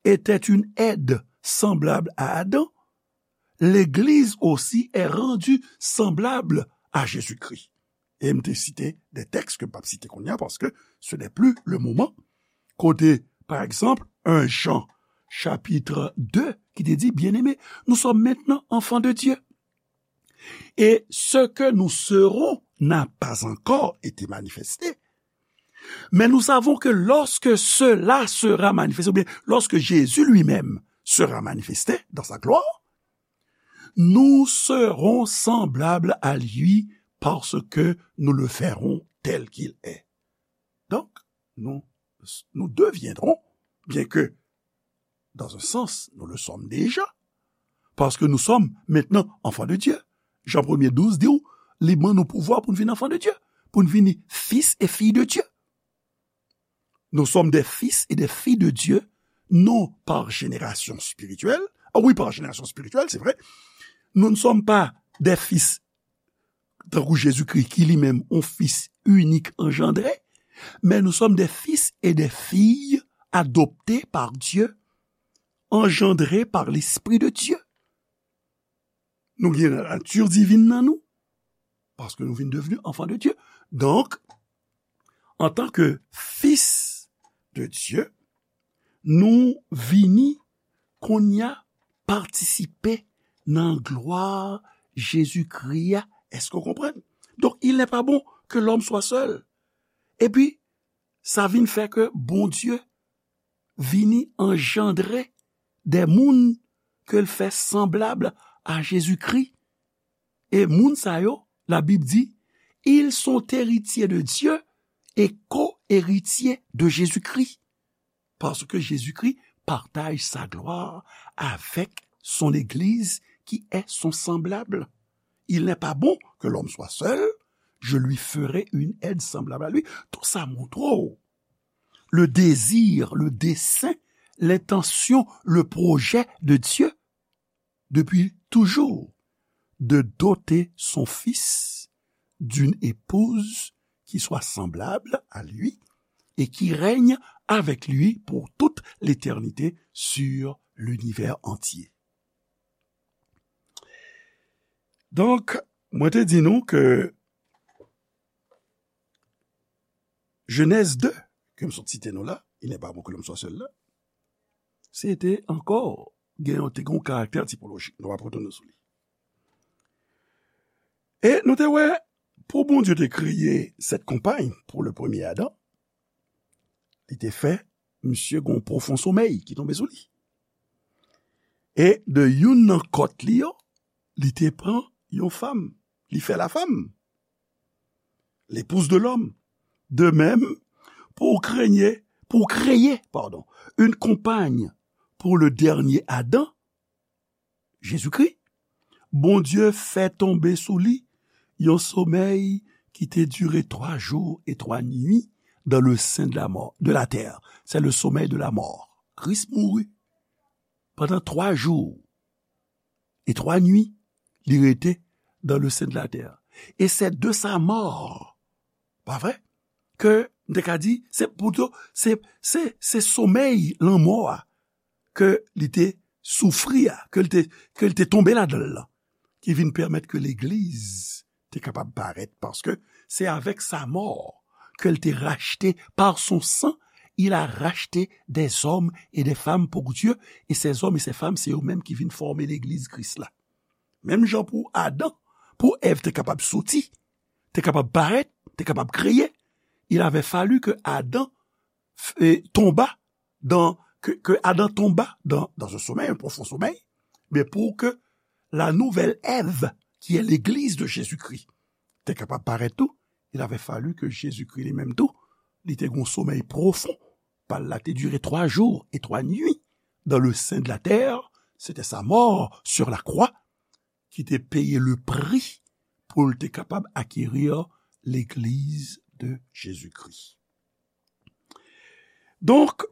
était une aide semblable à Adam, l'Église aussi est rendue semblable à Jésus-Christ. E m te site de tèks ke m p ap site kounye a, paske ce n'est plus le moment. Kote, par exemple, un Jean chapitre deux, ki te di, "Bien-aimés, nous sommes maintenant enfants de Dieu. Et ce que nous serons n'a pas encore été manifesté. Mais nous savons que lorsque cela sera manifesté, ou bien lorsque Jésus lui-même sera manifesté dans sa gloire, nous serons semblables à lui parce que nous le verrons tel qu'il est." Donc, nous, nous deviendrons, bien que dans un sens, nous le sommes déjà, parce que nous sommes maintenant enfants de Dieu. Jan premye douz di w, li ban nou pouvwa pou n vin enfants de Dieu, pou n vin fils et filles de Dieu. Nous sommes des fils et des filles de Dieu, non par génération spirituelle. Ah oui, par génération spirituelle, c'est vrai. Nous ne sommes pas des fils tankou Jezikri, ki li menm yon fis inik anjandre, mais nous sommes des fils et des filles adoptés par Dieu, engendrés par l'Esprit de Dieu. Nou gen nati divin nan nou, paske nou vin devni enfants de Dieu. Donk, antanke fis de Dieu, nou vini kounye a patisipe nan glwa Jezikri a. Èske w konprann? Donk, il n'est pas bon que l'homme soit seul. Epi, sa vin fè ke Bondye vini anjandre de moun ke l fè sanblab a Jezikri. E moun sa yo, Labib di, ils sont héritiers de Dieu et co-héritiers de Jésus-Christ. Parce que Jésus-Christ partage sa gloire avec son Église qui est son semblable. Il n'est pas bon que l'homme soit seul, je lui ferai une aide semblable à lui. Tout sa montre w le désir, le dessein, l'intention, le projet de Dieu depuis toujours de doter son fils d'une épouse qui soit semblable à lui et qui règne avec lui pour toute l'éternité sur l'univers entier. Donk, mwen te di nou ke Genèse deux, ke m sot site nou la, il n'est pas bon que l'homme soit seul la, se te ankò gen yon, te gen yon karaktè tipolojik. Nou ap retounen sou li. E nou te wè, pou Bondye te kreye cette compagne pour le premier Adam, li te fè misye gen yon pwofon somèy ki tonbe sou li. E de youn nan kòt li yo, li te pran yon fanm, li fè la femme, l'épouse de l'homme. De même, pour créer, pour créer, pardon, une compagne pour le dernier Adam, Jésus-Christ, Bondye fè tonbe sou li yon somèy ki te dire twa jou e twa nwi dans le sein de la mort, de la terre. C'est le sommeil de la mort. Kris mouri pandan twa jou e twa nwi, li rete dans le sein de la terre. Et c'est de sa mort, pa vre, ke m te ka di, se pito, se, se, se somèy lanmò a ke li te soufri a, ke li te, ke li te tonbe ladan l lan, ki vin pèmèt ke legliz te kapab parèt, paske se avèk sa mò ke l te rachte, par son sang, il a racheté des hommes et des femmes pour Dieu, et ces hommes et ces femmes, se yo menm ki vin fòme legliz Kris la. Menm jan pou Adan, pou Èv te kapab soti, te kapab parèt, te kapab kreye, il avait fallu que Adam f-, eh, tomba dans, que, que Adam tomba dans, dans un sommeil, un profond sommeil, mais pour que la nouvelle Ève, qui est l'église de Jésus-Christ, te kapab parèt tou, il avait fallu que Jésus-Christ li menm tou, li te gon somèy pwofon, pa l la te dire twa jou e twa nwi dans le sein de la terre, c'était sa mort sur la croix qui te peye le prix pou l te kapab acquérir l'église de Jésus-Christ. Donc,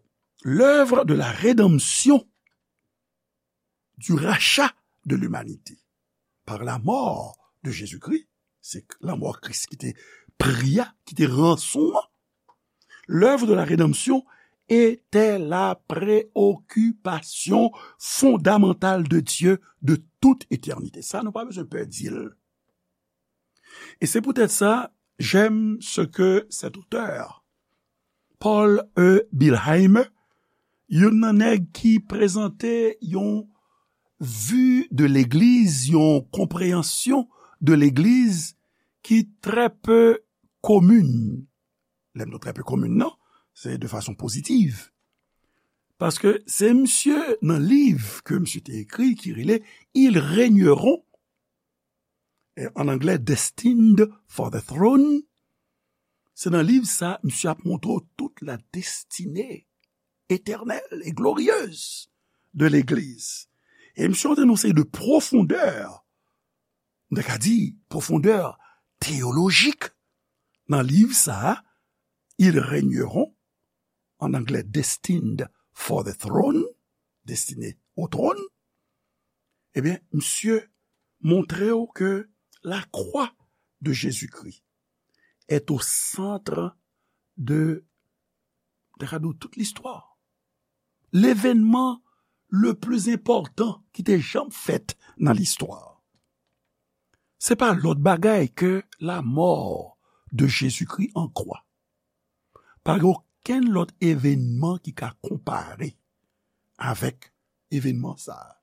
l'œuvre de la rédemption, du rachat de l'humanité par la mort de Jésus-Christ, se lanmò Kris ki te pri a, ki te ranson an. L'œuvre de la rédemption était la préoccupation fondamentale de Dieu de toute éternité. Sa, nou pa bezwen pè di l. Et c'est peut-être ça, j'aime ce que cet auteur, Paul E. Billheimer, youn nan nèg ki prezante yon vi de legliz, yon konpreyansyon de legliz ki trè pe komin. Lè m di trè pe komin nan, se de fason pozitiv. Paske se misye nan liv ke misye te ekri ki rele Ils régneront, e, an anglè, Destined for the Throne. Se nan liv sa, misye ap montre w tout la destinée éternelle et glorieuse de legliz. E misye antre nan yon seri de pwofondè, m ta ka di, pwofondè teyolojik nan liv sa, Ils régneront, an anglè, Destined for the Throne, Destiné au trône, ebyen, misye montre w ke la croix de Jésus-Christ est au centre de, de tout l'histoire. L'événement le plus important ki te janm fèt nan listwa. Se pa lòt bagay ke la mort de Jésus-Christ en croix. Pa gen okenn lòt evènman ki ka konpare avèk evènman sa a.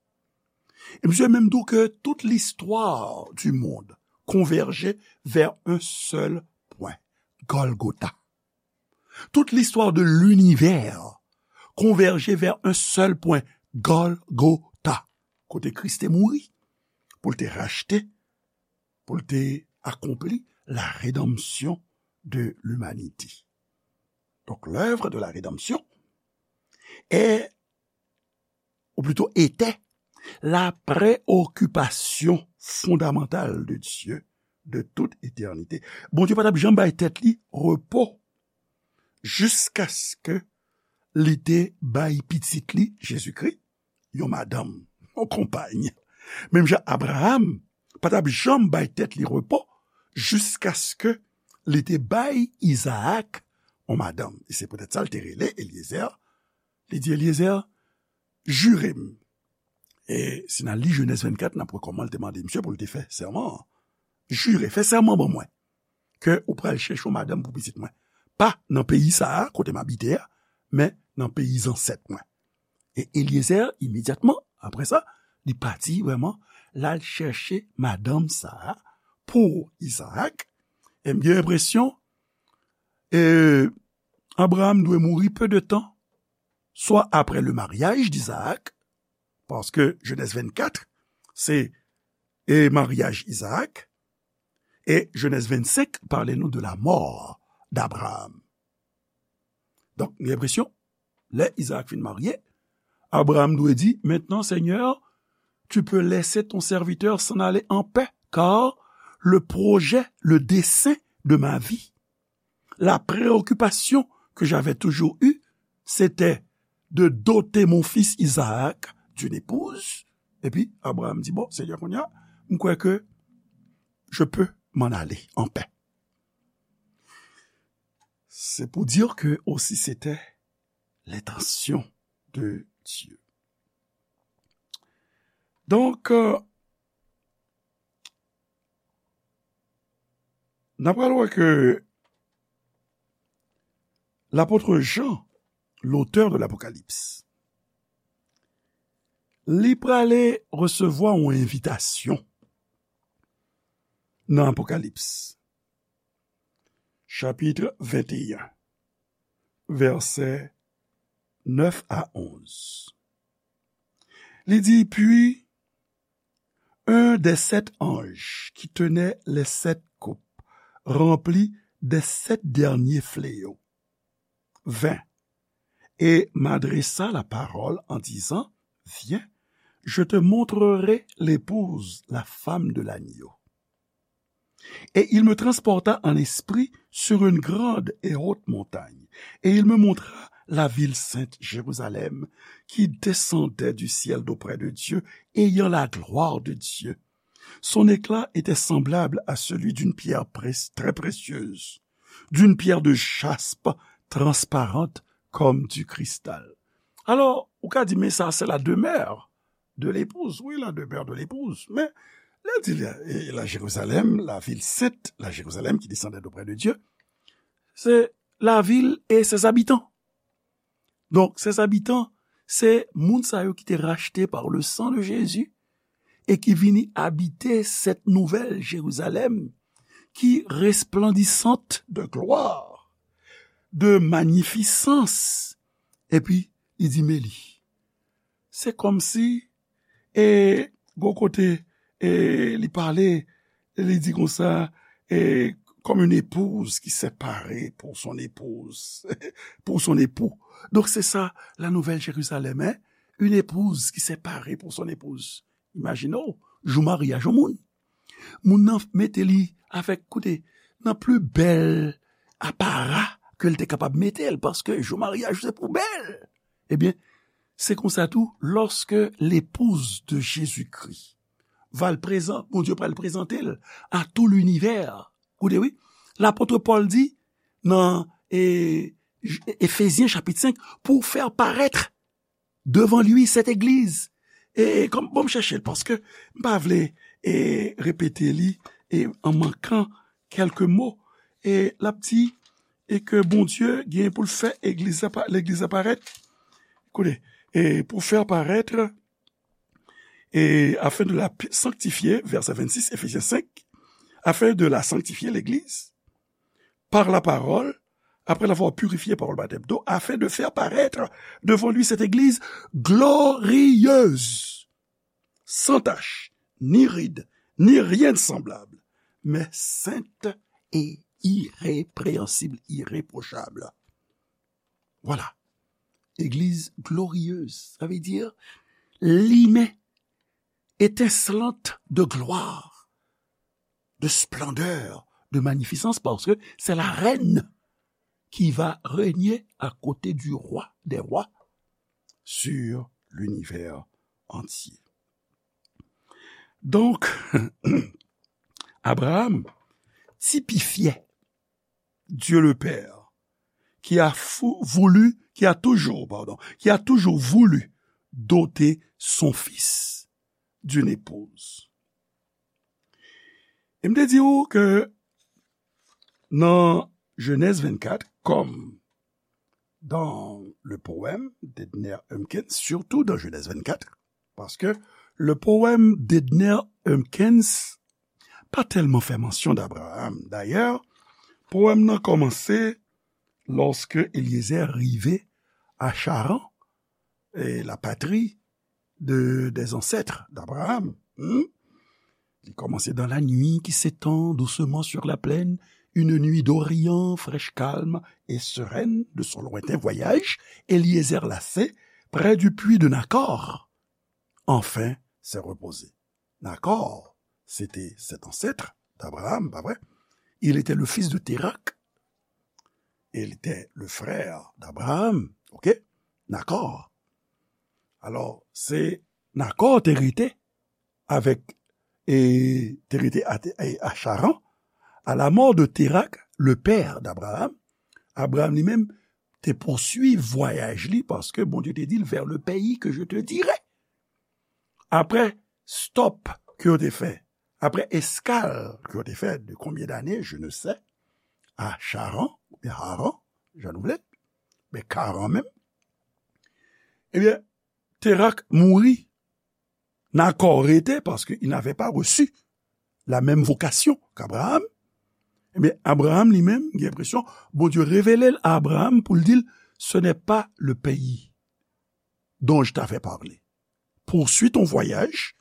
E misye menm di w ke toute l'histoire du monde convergeait vers un seul point, Golgotha. Toute l'histoire de l'univers convergeait vers un seul point, Golgotha, kote Kris te mouri, pou l te rachte, pou l te akonpli la rédemption de l'humanité. Donc, l'œuvre de la rédemption est, ou plutôt était, la préoccupation fondamentale de Dieu de toute éternité. Bondye pa t ap janm bay tèt li repo jiskaske li te bay pitit li, Jezikri, yon madanm, yon konpay. Menm jan Abraram pa t ap janm bay tèt li repo jiskaske li te bay Izaak yon madanm. E se poutèt sa l te rele Elyezer. Li di, Elyezer, jire m. E si n al li Jenèz vennkat, n ap wè kòman l te mande misye pou l te fè sèman an. Jire, fè sèman ban mwen ke ou pral chèche yon madanm pou pitit mwen. pa nan peyi sa a, kote m abite a, men nan peyi zansèt mwen. E Elyezè, imedyatman, apre sa, li pati vrèman, l al chèche madanm sa a pou Izaak. E m gen enpresyon, e, Abraham dwe mouri peu de temps, soit après le mariage d'Isaac, paske Genèse vingt-quatre, se, e, maryaj Izaak, e Genèse vingt-cinq pale nou de la mort d'Abraham. Donk, m gen enpresyon, lè Izaak fin marye, Abraham dwe di, maintenant, Seigneur, tu peux laisser ton serviteur s'en aller en paix, car le projet, le dessein de ma vie, la préoccupation que j'avais toujours eue, c'était de doter mon fils Isaac d'une épouse. Epi, Abraham di, bon, Seigneur, kounye a, m kwè ke je peux m'en aller en paix. C'est pour dire que aussi c'était l'intention de Dieu. Donk, euh, n ap pral wè ke lapot Jan, l'auteur de l'Apocalypse, li prale resevwa yon envitasyon nan Apokalips, chapit venteyen, vèsè nèf a onz. Li di, puis un des sept anges qui tenait les sept coupes, rempli des sept derniers fléaux, vint et m'adressa la parole en disant, viens, je te montrerai l'épouse, la femme de l'agneau. Et il me transporta en esprit sur une grande et haute montagne, et il me montra la ville sainte, Jérusalem, qui descendait du ciel d'auprès de Dieu, ayant la gloire de Dieu. Son éclat était semblable à celui d'une pierre pré-, très précieuse, d'une pierre de jaspe transparente comme du cristal. Alò, ou ka di, men sa, se la demeure de l'épouse. Oui, la demeure de l'épouse. Men, lè di la, e la Jérusalem, la ville sainte, la Jérusalem qui descendait d'auprès de Dieu, se lavil e ses habitants. Donk, ses habitants, se moun sa yo ki te rachte par le sang de Jésus et qui vini habiter cette nouvelle Jérusalem qui resplendissante de gloire, de magnificence. Epi, li di, men li. Se kòmsi, e, gon kote, e, li pale, li di konsa, e, comme une épouse qui s'est parée pour son épouse, pour son époux. Donk, se sa, la nouvelle Jérusalem, hein? Une épouse qui s'est parée pour son épouse. Imajine w, jou maryaj yon moun. Moun nan mete li avèk, koute, nan pli bèl apara ke l te kapab mete l, paske jou maryaj se pou bèl. Ebyen, se konsa tou, lorsque l'épouse de Jésus-Christ va l prezan-, Bondye pral prezante l à tout l'univers. Koute, wi, lapot Pòl di nan, e, J-, Efezyen chapit senk, pour faire paraître devant lui cette église. E kòm, bon, m chèche l, paske m pa vle, e, repete li, e, an mankan kèlke mo. E l ap di, e ke Bondye gen pou l fè egliz la pa-, legliz la parèt. Koute, e pour faire paraître, et afin de la pi-, sanctifier, verset vingt-six, Éphésiens cinq, afin de la sanctifier, l'église, par la parole, après l'avoir purifiée par le baptême d'eau, afin de faire paraître devant lui cette église glorieuse, sans tache, ni ride, ni rien de semblable, mais sainte et irrépréhensible, irréprochable. Voilà. Église glorieuse, ça veut dire limen, étincelante de gloire, de splendeur, de magnificence, parce que c'est la reine qui va régner à côté du roi des rois sur l'univers entier. Donk, Abraham tipifye Dieu le Père, qui a fou-, voulu, qui a toujours, pardon, qui a toujours voulu doter son fils d'une épouse. E m te di w ke nan Genèse vingt-quatre, comme dans le poème d'Edner Humpkins, surtout dans Genèse vingt-quatre, parce que le poème d'Edner Humpkins pa tèlman fè mansyon d'Abraham. D'ailleurs, poème nan kòmanse lorsque Eliezer rive à Charan, et la patrie de, des ancêtres d'Abraham. Hmm? Il commençait dans la nuit qui s'étend doucement sur la plaine, une nuit d'Orient, fraîche, calme et sereine de son lointain voyage, Eliezer lassé, près du puits de Nakor, enfin s'est reposé. Nakor, c'était cet ancêtre d'Abraham, pas vrai? Il était le fils de Térak. Il était le frère d'Abraham, ok? Nakor. Alò, se Nakor te rete avèk, e, te rete a, a, a Charan. À la mort de Térak, le père d'Abraham, Abraham li menm te pouswiv vwayaj li, paske Bondye te di l, vers le pays que je te dirai. Apre stop ke yo te fè, apre eskal ke yo te fè de combien d'années, je ne sais, à Charan, oubyen Haran, jan nou vle, men Karan menm, ebyen, Térak mouri, Nakor rete, paske il n'avait pas reçu la même vocation qu'Abraham. Ebyen, Abraham li menm, gen enpresyon, Bondye revele l a Abraham pou l di l, ce n'est pas le pays dont je t'avais parlé. Poursuis ton voyage,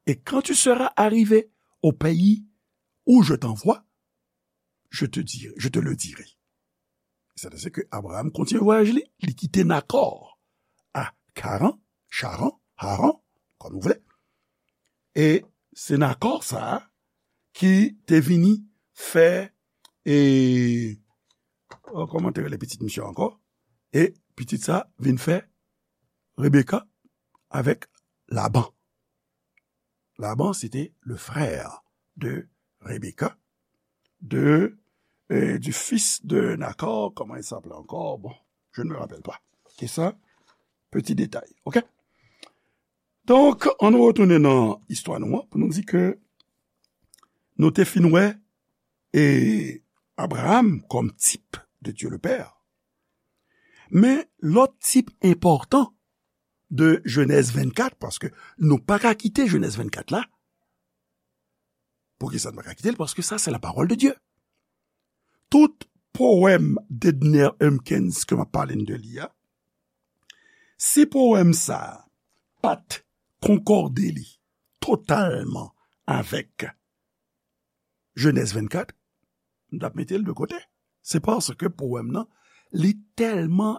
et quand tu seras arrivé au pays où je t'envoie, je te dirai, je te le dirai. Sètadi ke Abraham kontinye vwayaj li, li kite Nakor a Karan, Charan, Haran, kòm nou vle. E se Nakor sa a ki te vini fè, e, o, kòman te rele pitit misye ankò? E pitit sa vin fè Rebeka avèk Laban. Laban, se te le frère de Rebecca, de, euh, du fils de Nakor, comment il s'appelait encore? Bon, je ne me rappelle pas. C'est ça, petit détail, ok? Donk, ann nou retounen nan istwa nou an pou nou di ke nou te fin wè e Abraham kòm tip de Dieu le Père. Men lòt tip enpòtan de Jenèz vennkat, paske nou pa ka kite Jenèz vennkat la. Poukisa nou pa ka kite l? Paske sa se la parole de Dieu. Tout powèm Dedner Humpkins ke m ap pale n de li a, si powèm sa a pa t konkòde li totalman avèk Jenèz vennkat, m t ap mete l de kote. Se paske powèm nan, li tèlman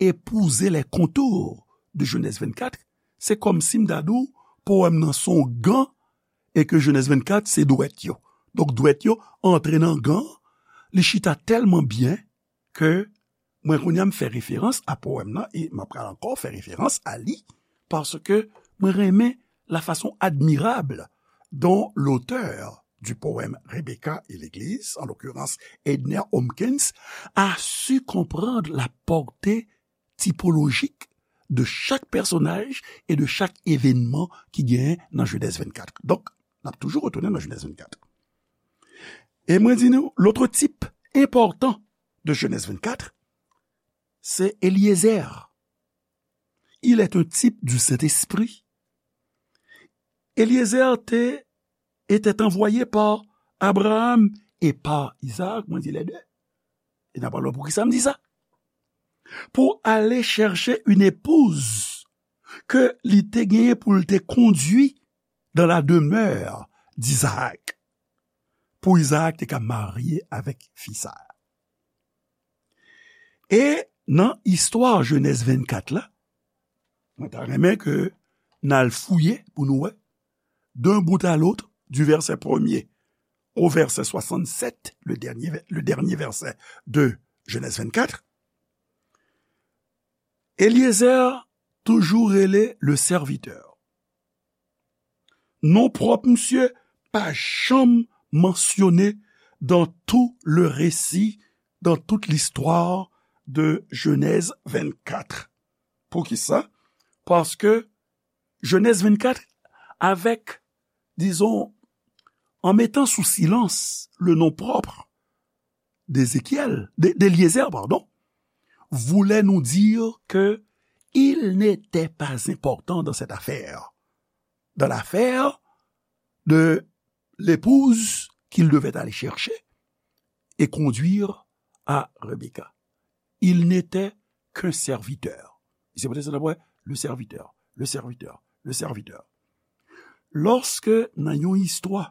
épouser les contours de Jenèz vennkat, se kòmsi m ta di w, powèm nan se yon gan, e ke Jenèz vennkat se dwèt yo. Donk, dwèt yo antre nan gan, li chita tèlman byen ke mwen kounye a m fè referans a powèm nan, e m ap pral ankò fè referans a li, paske mwen renmen la façon admirable dont l'auteur du poème Rebecca et l'Église, en l'occurrence Edner Humpkins, a su comprendre la portée typologique de chaque personnage et de chaque événement ki genyen nan Jenèz vennkat. Donk, n ap toujou retounen nan Jenèz vennkat. E mwen di nou, lòt tip enpòtan de Jenèz vennkat, se Eliezer. Il est un type du Saint-Esprit. Eliezer te, était envoyé par Abraham et par Isaac, mwen di les deux. E n ap pale poukisa m di sa. Pou ale chèche une épouse ke li te genyen pou l te kondui dans la demeure d'Isaac. Pou Isaac te ka marye avèk fi sa a. E nan istwa Jenèz vennkat la, mwen ta renmen ke n al fouye pou nou wè, d'un bout à l'autre, du verset premier au verset soixante-sept, le dernier, le dernier verset de Genèse vingt-quatre, Eliezer toujou rele le serviteur. Non pwòp misye pa janm mansyone dans tout le récit, dans toute l'histoire de Genèse vingt-quatre. Poukisa? Paske Jenèz vennkat, avec, disons, en mettant sous silence le nom propre, d'Ézéchiel, de, d'Éliézer, pardon, voulait nous dire que il n'était pas important dans cette affaire, dans l'affaire de l'épouse qu'il devait aller chercher et conduire à Rebecca. Il n'était qu'un serviteur. Se poutèt sa, le serviteur, le serviteur, le serviteur. Lòske nan yon istwa,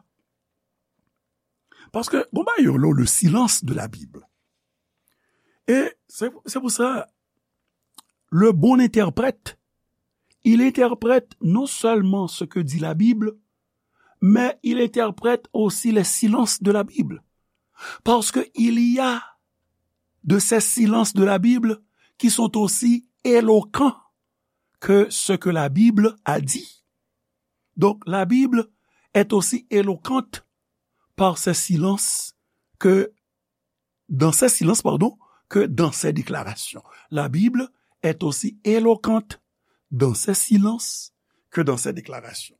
paske, bon, ba yo, le silence de la Bible. Et c'est, c'est pour ça, le bon interprète, il interprète non seulement ce que dit la Bible, mais il interprète aussi les silences de la Bible. Parce qu'il y a de ces silences de la Bible qui sont aussi éloquents que ce que la Bible a dit. Donc, la Bible est aussi éloquente par ses silences que dans ses silences, pardon, que dans ses déclarations. La Bible est aussi éloquente dans ses silences que dans ses déclarations.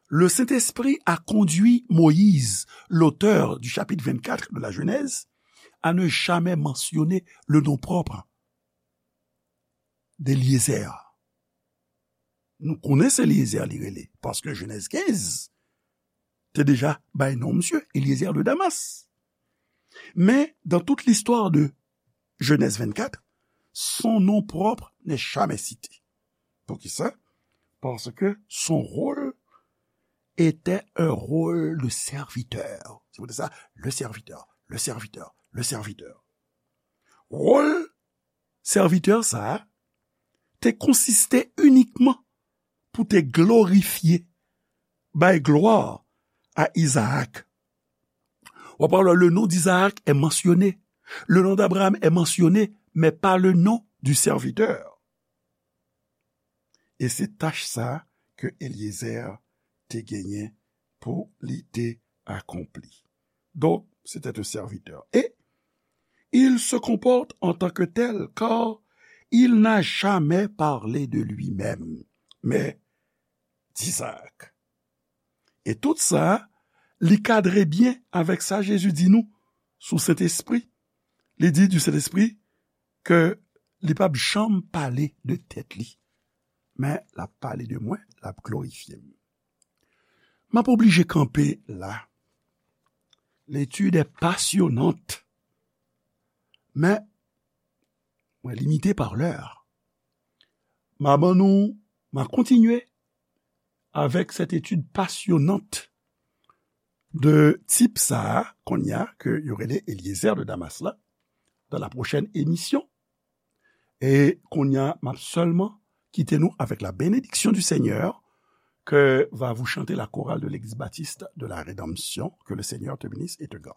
Le Saint-Esprit a conduit Moïse, l'auteur du chapitre vingt-quatre de la Genèse, à ne jamais mentionner le nom propre d'Éliézer. Nou konnen se Éliézer li rele, paske Genèse quinze te deja bay non misye, Éliézer de Damas. Mais dans toute l'histoire de Genèse vingt-quatre, son nom propre n'est jamais cité. Poukisa? Parce que son rôle était un rôle de serviteur. C'est pour ça, le serviteur, le serviteur, le serviteur. Rôle sèvitè sa a te konsiste inikman pou te glorifye, bay glwa a Izaak. W ap wè, le nom d'Isaac est mentionné, le nom d'Abraham est mentionné, mais pas le nom du serviteur. E se tach sa a ke Eliezer te genyen pou li te akonpli. Donc, c'était un serviteur. Et il se comporte en tant que tel, car il n'a jamais parlé de lui-même, mais d'Isaac. E tout sa, li kadre byen avèk sa Jezi di nou sou Sentespri. Li di du Sentespri ke li p ap janm pale de tèt li, men l ap pale de mwen, l ap glorifye m. M ap oblije kanpe la. L'étude est passionnante, men mwen limite pa lè. M a ban nou, m a kontinye avec cette étude passionnante de tip sa a, kounye a, ke yo rele Eliezer de Damas la, dans la prochaine émission. E kounye a, m ap sèlman kite nou avec la bénédiction du Seigneur, que va vous chanter la chorale de l'Église baptiste de la Rédemption. Que le Seigneur te bénisse et te garde.